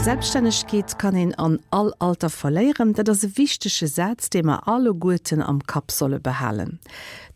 Selbststännegkeet kann een an all Alter verléieren, dat ass e wichtege Saz, dee mer alleguerten am Kapp solle behalen.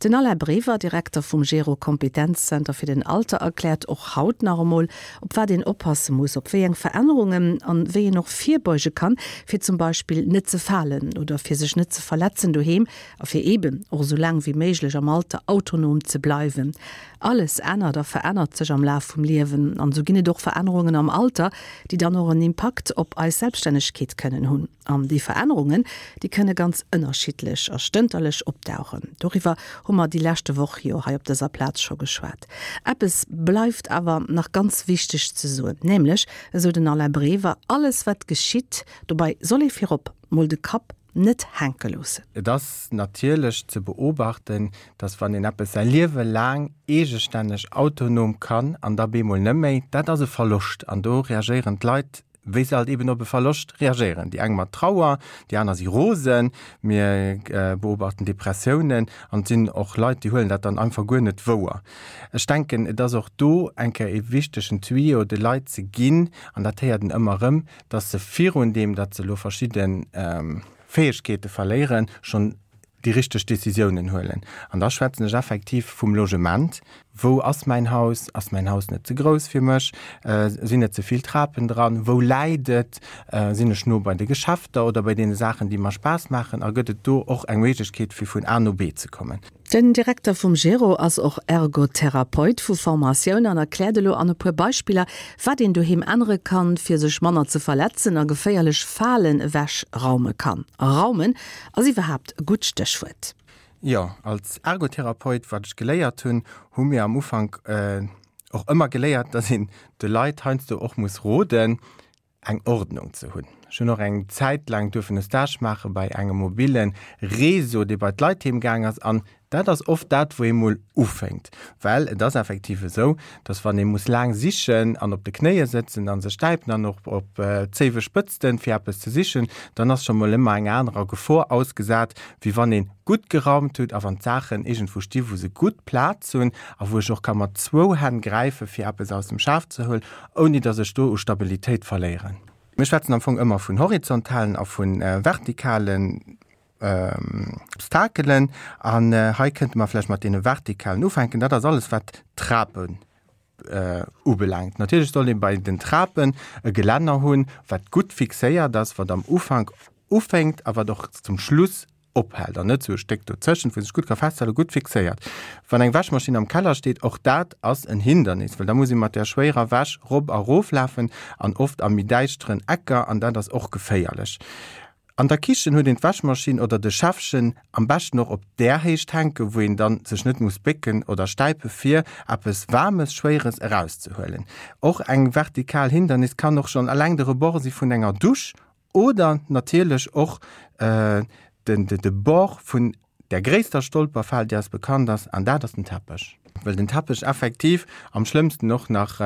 Den Alain Brever, Direkter vum Gero Kompetenzzenter fir den Alter, erkläert och haut nach emol, op wat een oppasse muss, op wéi eng Verännerungen an wéi een och virbeuge kann, fir zum Beispill net ze falen oder fir sech net ze verletzen doheem a fir eeben och esou laang wéi méiglech am Alter autonom ze bleiwen. Alles ännert a verännert sech am Laf vum Liewen an esou ginn et och Verännerungen am Alter, déi dann och en Impakt op eis Selbststännegkeet kënnen hunn. An déi Verännerungen, déi kënne ganz ënnerschiddlech a stënterlech opdauchen. Doriwwer hu mer déi leschte Woch jo hei op dëser Plaz scho geschwat. Eppes bleift awer nach ganz wichteg ze soen, nämlech, esou den Alain Brever, alles wat geschitt, dobei soll ee virop mol de Kapp net hänke loossen. Et ass natierlech ze beobachten, dass wann een eppes säi Liewe laang eegestänneg, autonom kann an da bemol net méi, dat ass e Verloscht an do reagéieren d'Leit, wéi se halt eben op e Verloscht reagéieren. Déi eng mat Trauer, déi aner si rosen, mir beobachten Depressiounen an et sinn och Leit, déi huelen dat dann einfach guer net wouer. Ech denken, et ass och do eng Kéier e wichtegen Tuyau de Leit ze ginn, an dat héiert een ëmmer erëm, dass se virun deem, datt se elo verschidde Fäegkeete verléieren, schonn déi richteg Décisiounen huelen. An da schwätzen ech effektiv vum Logement. Wou ass mäin Haus? Ass mäin Haus net ze grouss fir mech? Sinn net ze vill Trapen dran? Wou läit et? Sinn ech no bei de Geschäfter oder bei deene Saachen, déi mer Spaass maachen? A gëtt et do och eng Méiglechkeet, fir vun A no B ze kommen? Den Direkter vum Gero ass och Ergotherapeut vu Formatioun an erkläert elo an e puer Beispiller, wat een doheem ännere kann, fir sech manner ze verletzen a geféierlech Falen ewech raume kann. A raumen ass iwwerhaapt e gutt Stéchwuert. Jo, als Ergotherapeut, wat ech geléiert hunn, hu mir am Ufank och ëmmer geléiert, dass een de Leit heiansdo och muss roden, eng Ordnung ze hunn. Ech hunn och eng Zäit laang duerfen e Stage maache bei engem mobile Réseau, dee bei d'Leit heem gaang ass. An dat ass oft dat, wou ee mol ufénkt. Well et ass effektiv esou, dass wann ee muss laang sichen an op de Knéie sëtzen a sech stäipen an och op d'Zéiwe spëtzten, fir eppes ze sichen, dann ass scho mol ëmmer eng anerer Gefor ausgesat, wéi wann ee gutt geraumt huet a wann d'Saachen iergendwou sti wou se gutt Plaz hunn a wou ech och ka mat zwou Hänn gräife fir eppes aus dem Schaf ze huelen, ouni datt ech do u Stabilitéit verléieren. Mir schwätzen am Fong ëmmer vun horizontalen a vu vertikalen Obstakelen. An hei kënnte mer vläicht mat deene vertikalen ufänken. Dat ass alles, wat d'Trapen ubelaangt. Natierlech soll ee bei den Trapen e Gelänner hunn, wat gutt fixéiert ass, wat am Ufank ufänkt a wat och zum Schluss ophält an net sou e Stéck dozëschent, wou sech gutt ka festhalen, gutt fixéiert. Wann eng Wäschmaschinn am Keller steet, och dat ass en Hindernis, well da muss ee mat där schwéierer Wäsch rop a rof lafen an oft a méi däischteren Ecker an dat ass och geféierlech. An der Kichen huet een d'Wäschmaschinn oder de Schäffchen am beschten och op där Héicht hänken, wou een dann sech net muss bécken oder stäipe fir eppes Waarmes, Schwéieres erauszehuelen. Och eng vertikal Hindernis kann och schonn eleng de Rebord si vun enger Dusch Oder natierlech och de Bord vun där gréisster Stolperfal, déi eis bekannt ass, an dat ass den Teppech. Well den Teppech effektiv am schlëmmsten och nach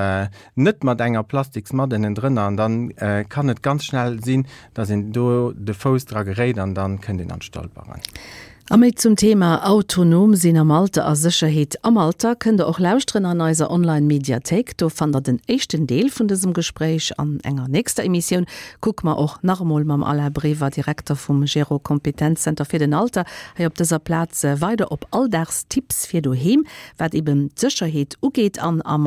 net mat enger Plastiksmatt ënnendrënner, an dann kann et ganz schnell sinn, dass een do de Fouss dra geréit an dann kënnt een an d'Stolperen. A méi zum Thema Autonom sinn am Alter a Sécherheet am Alter kënnt der och lauschteren an eiser Online Mediathéik. Do fannt der den éischten Deel vun dësem Gespréich. An enger nächster Emissioun kucke mer och nach emol mam Alain Brever, Direkter vum Gero Kompetenzzenter fir den Alter, hei op dëser Plaz weider op Alldagstipps fir doheem, wat eben d'Sécherheet ugeet an am.